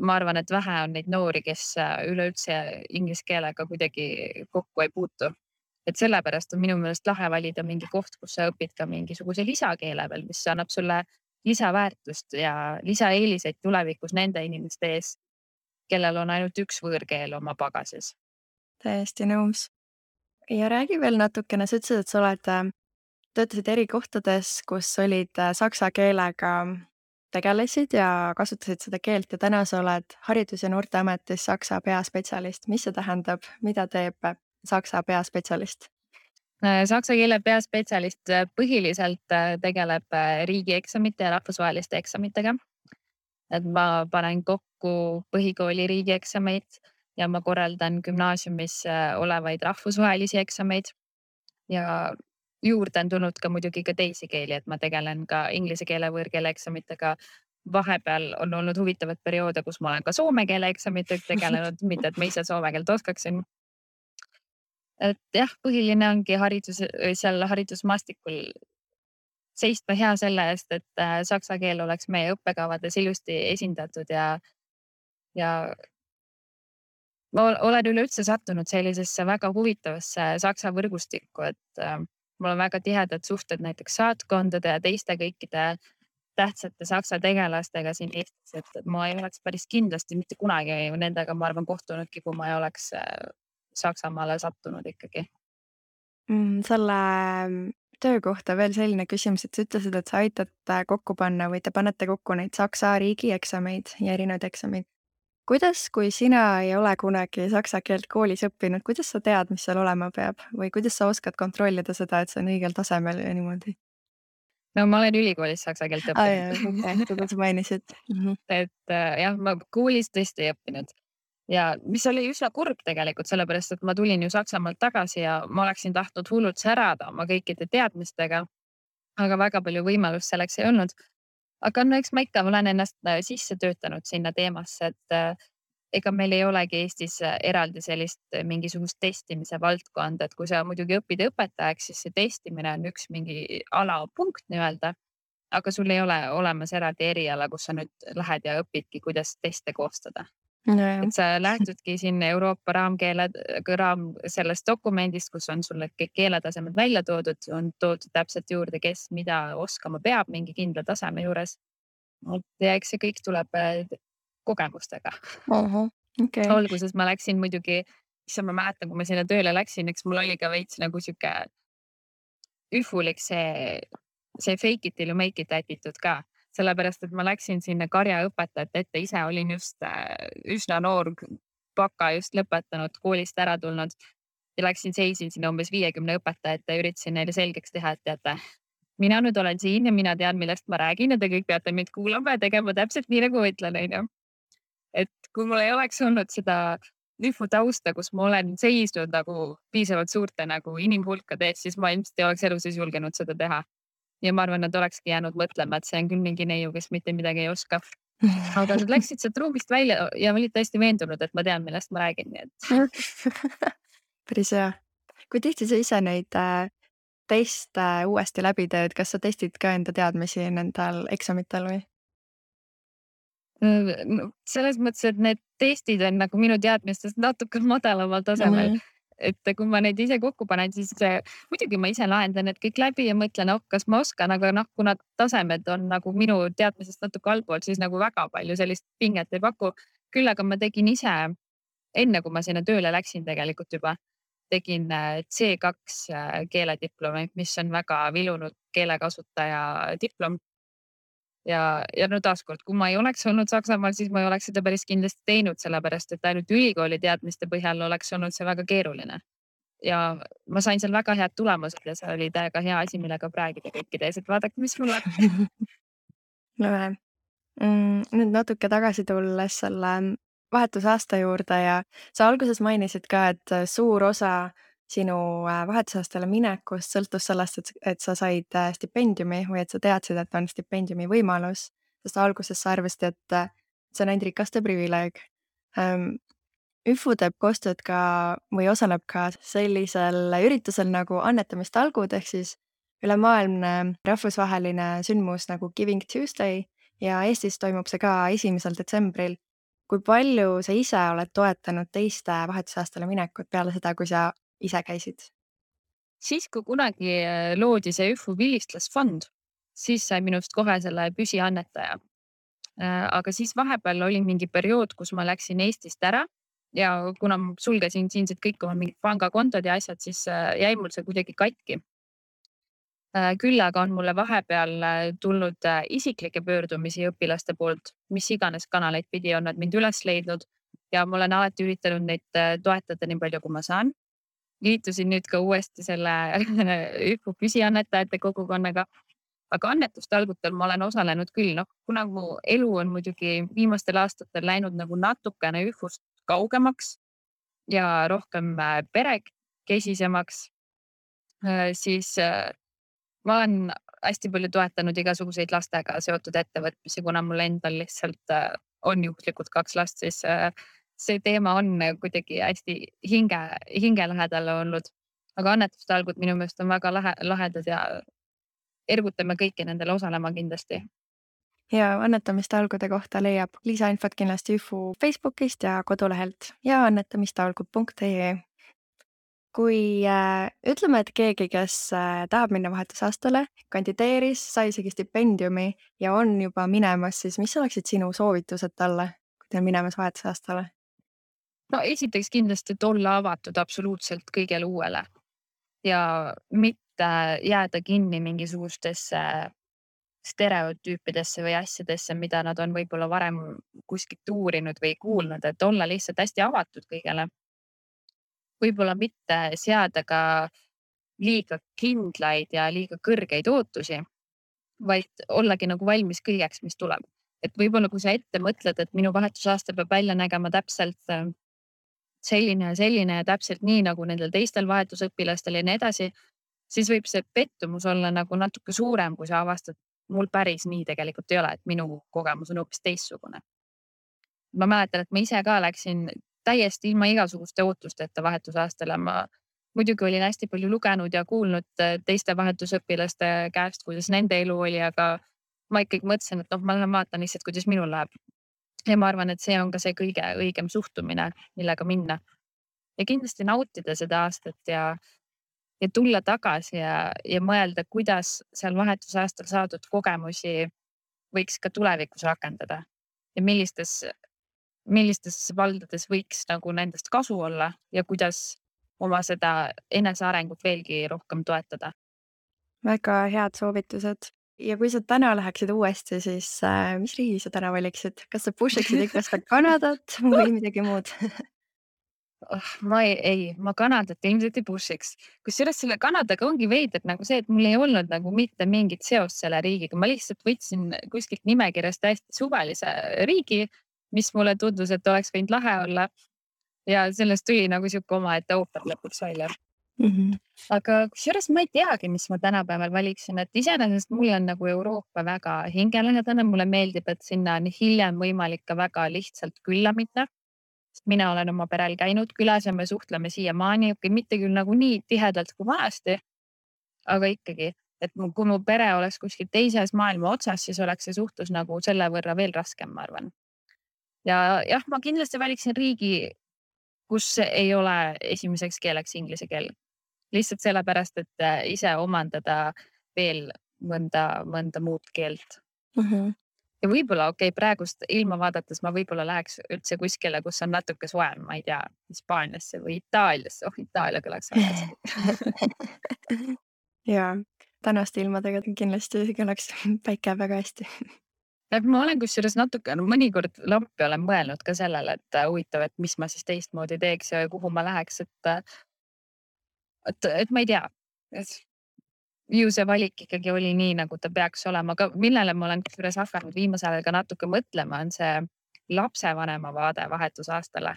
Ma arvan, et vähe on neid noori, kes üleüldse inglise keelega kuidagi kokku ei puutu. Et sellepärast on minu meelest lahe valida mingi koht, kus sa õpid ka mingisuguse lisakeele veel, mis annab sulle lisaväärtust ja lisaeeliseid tulevikus nende inimeste ees, kellel on ainult üks võõrkeel oma pagasis. Täiesti nõus. Ja räägi veel natukene, sa ütlesid, et sa töötasid eri kohtades, kus olid saksa keelega tegelesid ja kasutasid seda keelt ja täna sa oled Haridus- ja Noorteametis saksa peaspetsialist. Mis see tähendab? Mida teeb saksa peaspetsialist? Saksa keele peaspetsialist põhiliselt tegeleb riigieksamite ja rahvusvaheliste eksamitega. Et ma panen kokku põhikooli riigieksameid ja ma korraldan gümnaasiumis olevaid rahvusvahelisi eksameid ja juurde on tulnud ka muidugi ka teisi keeli, et ma tegelen ka inglise keele võõrkeele eksamitega. Vahepeal on olnud huvitavad perioode, kus ma olen ka soome keele eksamitega tegelenud, mitte et ma ise soome keelt oskaksin. Et jah, põhiline ongi seal haridusmaastikul seista hea selle eest, et saksa keel oleks meie õppekavades ilusti esindatud ja ma olen üleüldse sattunud sellisesse väga huvitavasse saksa võrgustikku, et mul on väga tihedad suhted näiteks saatkondade ja teiste kõikide tähtsate saksa tegelastega siin Eestis, et ma ei oleks päris kindlasti mitte kunagi nendega, ma arvan, kohtunudki, kui ma ei oleks Saksamaale sattunud ikkagi. Selle töö kohta veel selline küsimus, et sa ütlesid, et sa aitad kokku panna või te panete kokku neid saksa riigieksameid ja erinevaid eksameid. Kuidas, kui sina ei ole kunagi saksa keelt koolis õppinud, kuidas sa tead, mis seal olema peab või kuidas sa oskad kontrollida seda, et see on õigel tasemel ja niimoodi? No ma olen ülikoolis saksa keelt õppinud. Seda sa mainisid. Et jah, ma koolis tõesti ei õppinud. ja mis oli üsna kurb tegelikult, sellepärast et ma tulin ju Saksamaalt tagasi ja ma oleksin tahtnud hullult särada oma kõikide teadmistega, aga väga palju võimalust selleks ei olnud. Aga no eks ma ikka olen ennast sisse töötanud sinna teemasse, et ega meil ei olegi Eestis eraldi sellist mingisugust testimise valdkonda, et kui sa muidugi õpid õpetajaks, siis see testimine on üks mingi alapunkt nii-öelda. Aga sul ei ole olemas eraldi eriala, kus sa nüüd lähed ja õpidki, kuidas teste koostada. Nojah. Et sa lähtudki siin Euroopa raam sellest dokumendist, kus on sulle kõik keeletasemed välja toodud, on toodud täpselt juurde, kes mida oskama peab mingi kindla taseme juures. Ja eks see kõik tuleb kogemustega. Okei. Alguses ma läksin muidugi, issand, ma mäletan, kui ma sinna tööle läksin, eks mul oli ka veits nagu sihuke ühvulik see fake it till you make it attitude ka. Sellepärast, et ma läksin sinna karjaõpetajate ette, ise olin just üsna noor, baka just lõpetanud, koolist ära tulnud ja läksin, seisin sinna umbes 50 õpetajat ja üritasin neile selgeks teha, et teate, mina nüüd olen siin ja mina tean, millest ma räägin ja te kõik peate mind kuulama ja tegema täpselt nii, nagu ma ütlen, onju. Et kui mul ei oleks olnud seda tausta, kus ma olen seisnud nagu piisavalt suurte nagu inimhulkade ees, siis ma ilmselt ei oleks elus julgenud seda teha. Ja ma arvan, nad olekski jäänud mõtlema, et see on küll mingi neiu, kes mitte midagi ei oska. Aga nad läksid sealt ruumist välja ja olid täiesti veendunud, et ma tean, millest ma räägin. Nii et Päris hea. Kui tihti sa ise neid teste uuesti läbi teed, kas sa testid ka enda teadmisi nendel eksamitel või? selles mõttes, et need testid on nagu minu teadmistest natuke madalamal tasemel. Et kui ma neid ise kokku panen, siis muidugi ma ise lahendan need kõik läbi ja mõtlen, kas ma oskan, aga kuna tasemed on nagu minu teadmisest natuke allpool, siis nagu väga palju sellist pinget ei paku. Küll aga ma tegin ise, enne kui ma sinna tööle läksin tegelikult juba, tegin C2 keelediplomi, mis on väga vilunud keelekasutaja diplom. Ja no taaskord, kui ma ei oleks olnud Saksamaal, siis ma ei oleks seda päris kindlasti teinud, sellepärast et ainult ülikooli teadmiste põhjal oleks olnud see väga keeruline. Ja ma sain seal väga head tulemused ja see oli täiega hea asi, millega räägida kõikide ees, et vaadake, mis mul on. Lahe. Nüüd natuke tagasi tulles selle vahetusaasta juurde ja sa alguses mainisid ka, et suur osa sinu vahetusaastale minekust sõltus sellest, et sa said stipendiumi või et sa teadsid, et on stipendiumi võimalus, sest alguses sa arvasid, et see on ainult rikaste privileeg. ÜFU teeb koostööd ka või osaleb ka sellisel üritusel nagu annetamistallgud ehk siis ülemaailmne rahvusvaheline sündmus nagu Giving Tuesday ja Eestis toimub see ka 1. detsembril. Kui palju sa ise oled toetanud teiste vahetusaastale minekut peale seda, kui sa ise käisid? Siis, kui kunagi loodi see ÜFU vilistlasfond, siis sai minust kohe selle püsiannetaja. Aga siis vahepeal oli mingi periood, kus ma läksin Eestist ära ja kuna ma sulgesin siinsed kõik oma mingid pangakontod ja asjad, siis jäi mul see kuidagi katki. Küll aga on mulle vahepeal tulnud isiklikke pöördumisi õpilaste poolt, mis iganes kanaleid pidi on nad mind üles leidnud ja ma olen alati üritanud neid toetada nii palju, kui ma saan. Liitusin nüüd ka uuesti selle ÜFU püsiannetajate kogukonnaga, aga annetustalgutel ma olen osalenud küll, kuna mu elu on muidugi viimastel aastatel läinud nagu natukene ÜFU-st kaugemaks ja rohkem perekesisemaks, siis ma olen hästi palju toetanud igasuguseid lastega seotud ettevõtmisi, kuna mul endal lihtsalt on juhuslikult 2 last, siis see teema on kuidagi hästi hinge lähedal olnud. Aga annetustalgud minu meelest on väga lahedad ja ergutame kõiki nendele osalema kindlasti. Ja annetamistalgude kohta leiab lisainfot kindlasti ÜFU Facebookist ja kodulehelt ja annetamistalgud.ee. Kui ütleme, et keegi, kes tahab minna vahetusaastale, kandideeris, sai isegi stipendiumi ja on juba minemas, siis mis oleksid sinu soovitused talle, kui ta on minemas vahetusaastale? No esiteks kindlasti, et olla avatud absoluutselt kõigele uuele ja mitte jääda kinni mingisugustesse stereotüüpidesse või asjadesse, mida nad on võib-olla varem kuskilt uurinud või kuulnud, et olla lihtsalt hästi avatud kõigele. Võib-olla mitte seada ka liiga kindlaid ja liiga kõrgeid ootusi, vaid ollagi nagu valmis kõigeks, mis tuleb. et võib-olla kui sa ette mõtled, et minu vahetusaasta peab välja nägema täpselt selline ja täpselt nii nagu nendel teistel vahetusõpilastel ja nii edasi, siis võib see pettumus olla nagu natuke suurem, kui sa avastad, mul päris nii tegelikult ei ole, et minu kogemus on hoopis teistsugune. Ma mäletan, et ma ise ka läksin täiesti ilma igasuguste ootusteta vahetusaastale. Ma muidugi olin hästi palju lugenud ja kuulnud teiste vahetusõpilaste käest, kuidas nende elu oli, aga ma ikkagi mõtlesin, et ma lähen vaatan lihtsalt, kuidas minul läheb. Ja ma arvan, et see on ka see kõige õigem suhtumine, millega minna. Ja kindlasti nautida seda aastat ja tulla tagasi ja mõelda, kuidas seal vahetusaastal saadud kogemusi võiks ka tulevikus rakendada ja millistes valdades võiks nagu nendest kasu olla ja kuidas oma seda enesearengut veelgi rohkem toetada. Väga head soovitused. Ja kui sa täna läheksid uuesti, siis mis riigi sa täna valiksid? Kas sa push iksid ikka seda Kanadat või midagi muud? Ma Kanadat ilmselt ei push'iks. Kusjuures selle Kanadaga ongi veider nagu see, et mul ei olnud nagu mitte mingit seost selle riigiga. Ma lihtsalt võtsin kuskilt nimekirjast täiesti suvalise riigi, mis mulle tundus, et oleks võinud lahe olla. Ja sellest tuli nagu siuke omaette ooper lõpuks välja. Aga kusjuures ma ei teagi, mis ma tänapäeval valiksin, et iseenesest mulle on nagu Euroopa väga hingelähedane. Mulle meeldib, et sinna on hiljem võimalik ka väga lihtsalt külla minna. Mina olen oma perel käinud külas ja me suhtleme siiamaani, mitte küll nagu nii tihedalt kui vanasti, aga ikkagi, et kui mu pere oleks kuskil teises maailma otsas, siis oleks see suhtlus nagu selle võrra veel raskem, ma arvan. Ja jah, ma kindlasti valiksin riigi, kus ei ole esimeseks keeleks inglise keel. Lihtsalt sellepärast, et ise omandada veel mõnda muud keelt. Ja võib-olla praegust ilma vaadates ma võib-olla läheks üldse kuskile, kus on natuke soem, ma ei tea, Hispaaniasse või Itaaliasse. Itaalia kõlaks väga hästi. Jaa, tänaste ilmadega kindlasti kõlaks päike väga hästi. Ma olen kusjuures natuke mõnikord lampi olen mõelnud ka sellele, et huvitav, et mis ma siis teistmoodi teeks ja kuhu ma läheks, et ma ei tea. Ju see valik ikkagi oli nii, nagu ta peaks olema, aga millele ma olen kusjuures hakanud viimasel ajal ka natuke mõtlema, on see lapsevanema vaade vahetusaastale.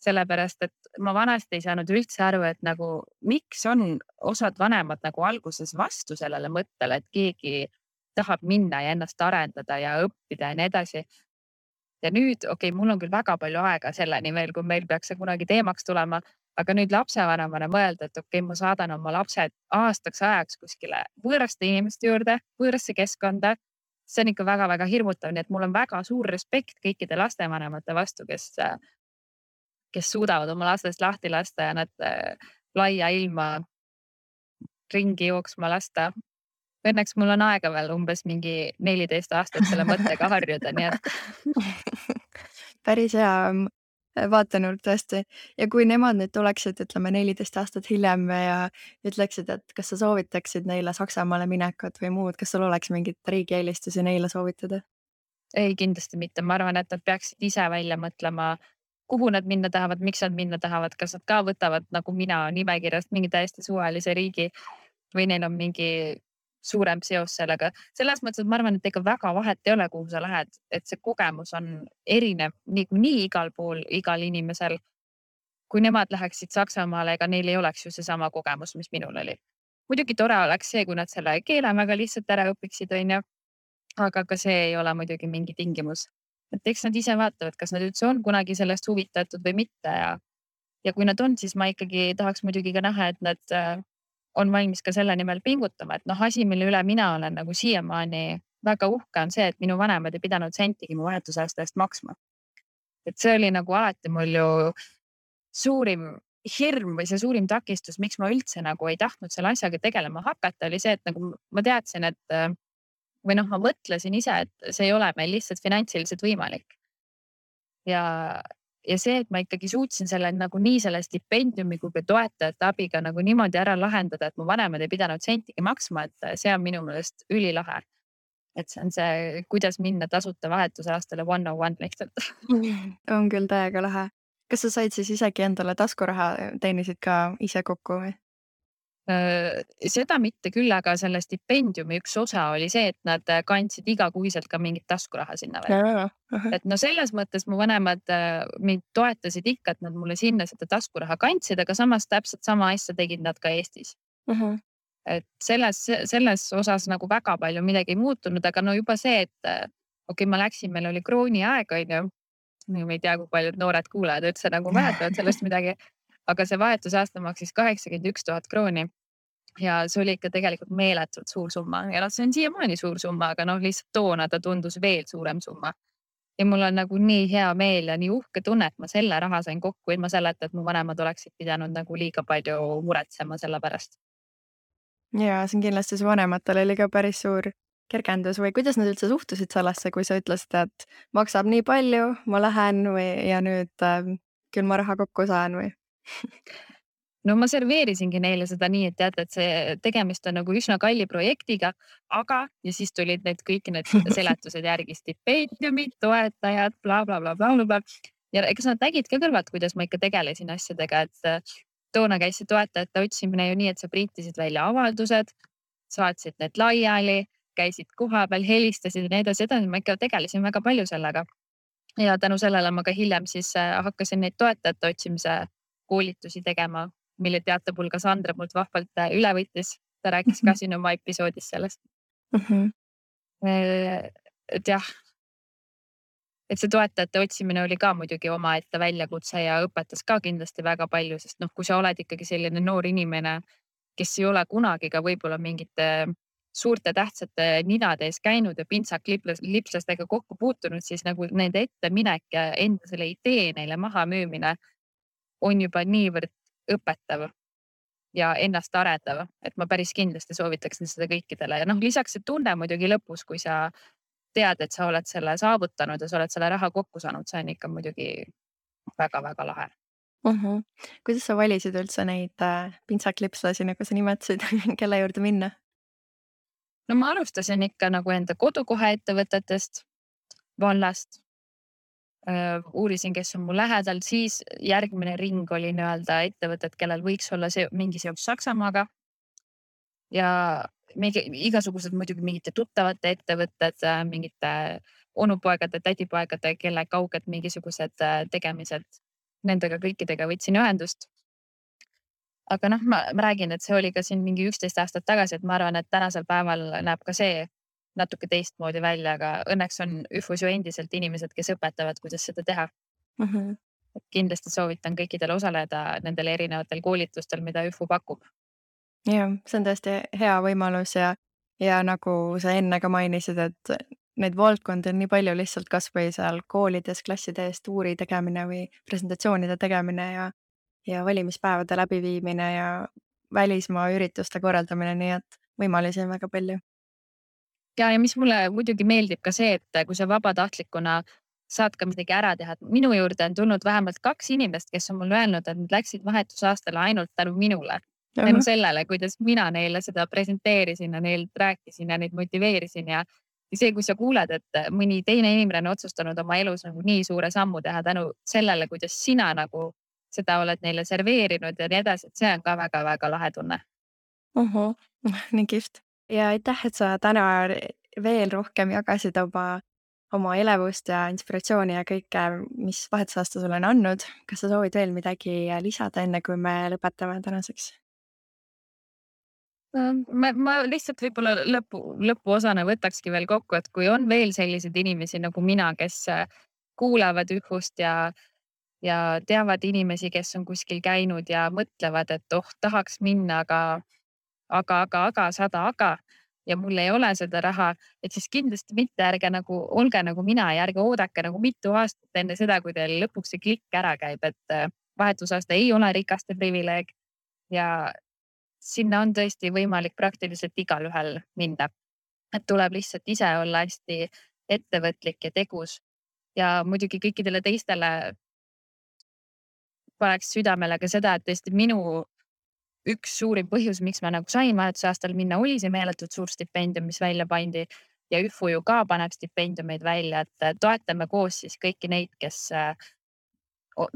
Sellepärast, et ma vanasti ei saanud üldse aru, et nagu miks on osad vanemad nagu alguses vastu sellele mõttele, et keegi tahab minna ja ennast arendada ja õppida ja nii edasi. Ja nüüd, mul on küll väga palju aega selleni veel, kui meil peaks see kunagi teemaks tulema, aga nüüd lapsevanemana mõelda, et ma saadan oma lapsed aastaks ajaks kuskile võõraste inimeste juurde, võõrasse keskkonda. See on ikka väga-väga hirmutav, nii et mul on väga suur respekt kõikide lastevanemate vastu, kes suudavad oma lastest lahti lasta ja nad laia ilma ringi jooksma lasta. Õnneks mul on aega veel umbes mingi 14 aastat selle mõttega harjuda, nii et päris hea vaatenurk tõesti. Ja kui nemad nüüd tuleksid, ütleme 14 aastat hiljem ja ütleksid, et kas sa soovitaksid neile Saksamaale minekut või muud, kas sul oleks mingit riigieelistusi neile soovitada? Ei, kindlasti mitte. Ma arvan, et nad peaksid ise välja mõtlema, kuhu nad minna tahavad, miks nad minna tahavad, kas nad ka võtavad nagu mina nimekirjast mingi täiesti suvalise riigi või neil on mingi suurem seos sellega. Selles mõttes, et ma arvan, et ega väga vahet ei ole, kuhu sa lähed, et see kogemus on erinev nii igal pool, igal inimesel. Kui nemad läheksid Saksamaale, ega neil ei oleks ju seesama kogemus, mis minul oli. Muidugi tore oleks see, kui nad selle keele väga lihtsalt ära õpiksid, aga ka see ei ole muidugi mingi tingimus. Et eks nad ise vaatavad, kas nad üldse on kunagi sellest huvitatud või mitte ja kui nad on, siis ma ikkagi tahaks muidugi ka näha, et nad on valmis ka selle nimel pingutama, et asi, mille üle mina olen nagu siiamaani väga uhke on see, et minu vanemad ei pidanud sentigi mu vahetusaasta eest maksma. Et see oli nagu alati mul ju suurim hirm või see suurim takistus, miks ma üldse nagu ei tahtnud selle asjaga tegelema hakata, oli see, et nagu ma teadsin, et või ma mõtlesin ise, et see ei ole meil lihtsalt finantsiliselt võimalik. Ja see, et ma ikkagi suutsin selle nagu nii selle stipendiumi kui ka toetajate abiga nagu niimoodi ära lahendada, et mu vanemad ei pidanud sentigi maksma, et see on minu meelest ülilahe. Et see on see, kuidas minna tasuta vahetusaastale 101 lihtsalt. On küll täiega lahe. Kas sa said siis isegi endale taskuraha teenisid ka ise kokku või? Seda mitte küll, aga selle stipendiumi üks osa oli see, et nad kandsid igakuiselt ka mingit taskuraha sinna veel. Et no selles mõttes mu vanemad mind toetasid ikka, et nad mulle sinna seda taskuraha kandsid, aga samas täpselt sama asja tegid nad ka Eestis. Et selles osas nagu väga palju midagi ei muutunud, aga no juba see, et okei, ma läksin, meil oli krooni aeg, on ju. Ma ei tea, kui paljud noored kuulajad üldse nagu mäletavad sellest midagi, aga see vahetusaasta maksis 81 000 krooni. Ja see oli ikka tegelikult meeletult suur summa ja noh, see on siiamaani suur summa, aga noh, lihtsalt toona ta tundus veel suurem summa. Ja mul on nagu nii hea meel ja nii uhke tunne, et ma selle raha sain kokku ilma selleta, et mu vanemad oleksid pidanud nagu liiga palju muretsema selle pärast. Ja see on kindlasti su vanematel oli ka päris suur kergendus või kuidas nad üldse suhtusid sellesse, kui sa ütlesid, et maksab nii palju, ma lähen või ja nüüd küll ma raha kokku saan või? No ma serveerisingi neile seda nii, et teate, et see tegemist on nagu üsna kalli projektiga, aga ja siis tulid need kõik need seletused järgi, stipendiumid, toetajad, blablabla. Ja kas nad nägid ka kõrvalt, kuidas ma ikka tegelesin asjadega, et toona käis see toetajate otsimine ju nii, et sa printisid välja avaldused, saatsid need laiali, käisid kohapeal, helistasid ja nii edasi, ma ikka tegelesin väga palju sellega. Ja tänu sellele ma ka hiljem siis hakkasin neid toetajate otsimise koolitusi tegema, mille teatepulga Sandra mult vahvalt üle võttis. Ta rääkis ka siin oma episoodis sellest. Et jah, et see toetajate otsimine oli ka muidugi omaette väljakutse ja õpetas ka kindlasti väga palju, sest noh, kui sa oled ikkagi selline noor inimene, kes ei ole kunagi ka võib-olla mingite suurte tähtsate ninade ees käinud ja pintsaklipslastega kokku puutunud, siis nagu nende etteminek ja enda selle idee neile maha müümine on juba niivõrd õpetav ja ennast arendav, et ma päris kindlasti soovitaksin seda kõikidele ja noh, lisaks see tunne muidugi lõpus, kui sa tead, et sa oled selle saavutanud ja sa oled selle raha kokku saanud, see on ikka muidugi väga-väga lahe. Kuidas sa valisid üldse neid pintsaklipslasi, nagu sa nimetasid, kelle juurde minna? No ma alustasin ikka nagu enda kodukoha ettevõtetest, vallast. Uurisin, kes on mul lähedal, siis järgmine ring oli nii-öelda ettevõtted, kellel võiks olla mingi seos Saksamaaga. Ja igasugused muidugi mingite tuttavate ettevõtted, mingite onupoegade, tädipoegade, kelle kauged mingisugused tegemised. Nendega kõikidega võtsin ühendust. Aga noh, ma räägin, et see oli ka siin mingi 11 aastat tagasi, et ma arvan, et tänasel päeval näeb ka see natuke teistmoodi välja, aga õnneks on ÜFUs ju endiselt inimesed, kes õpetavad, kuidas seda teha. Et kindlasti soovitan kõikidel osaleda nendel erinevatel koolitustel, mida ÜFU pakub. Jah, see on tõesti hea võimalus ja nagu sa enne ka mainisid, et neid valdkondi on nii palju lihtsalt kas või seal koolides klasside ees tuuri tegemine või presentatsioonide tegemine ja valimispäevade läbiviimine ja välismaa ürituste korraldamine, nii et võimalusi on väga palju. Ja mis mulle muidugi meeldib ka see, et kui sa vabatahtlikuna saad ka midagi ära teha. Minu juurde on tulnud vähemalt 2 inimest, kes on mulle öelnud, et nad läksid vahetusaastale ainult tänu minule. Tänu sellele, kuidas mina neile seda presenteerisin ja neilt rääkisin ja neid motiveerisin ja see, kui sa kuuled, et mõni teine inimene on otsustanud oma elus nagu nii suure sammu teha tänu sellele, kuidas sina nagu seda oled neile serveerinud ja nii edasi, et see on ka väga-väga lahe tunne. Nii kihvt. Ja aitäh, et sa täna veel rohkem jagasid oma elevust ja inspiratsiooni ja kõike, mis vahetusaasta sulle on andnud. Kas sa soovid veel midagi lisada, enne kui me lõpetame tänaseks? Ma lihtsalt võib-olla lõpuosana võtakski veel kokku, et kui on veel selliseid inimesi nagu mina, kes kuulavad ÜFUst ja teavad inimesi, kes on kuskil käinud ja mõtlevad, et tahaks minna, aga 100 aga ja mul ei ole seda raha, et siis kindlasti mitte olge nagu mina ja ärge oodake nagu mitu aastat enne seda, kui teil lõpuks see klikk ära käib, et vahetusaasta ei ole rikaste privileeg ja sinna on tõesti võimalik praktiliselt igalühel minna. Et tuleb lihtsalt ise olla hästi ettevõtlik ja tegus ja muidugi kõikidele teistele paneks südamele ka seda, et tõesti minu üks suurim põhjus, miks ma nagu sain vahetusaastal minna, oli see meeletult suur stipendium, mis välja pandi ja ÜFU ju ka paneb stipendiumeid välja, et toetame koos siis kõiki neid, kes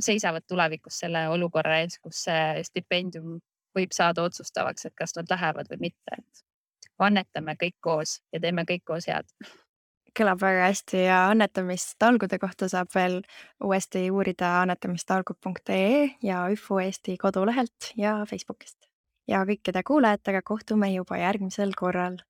seisavad tulevikus selle olukorra ees, kus see stipendium võib saada otsustavaks, et kas nad lähevad või mitte, et annetame kõik koos ja teeme kõik koos head. Kõlab väga hästi ja annetamistalgude kohta saab veel uuesti uurida annetamistalgud.ee ja ÜFU Eesti kodulehelt ja Facebookist. Ja kõikide kuulajatega kohtume juba järgmisel korral.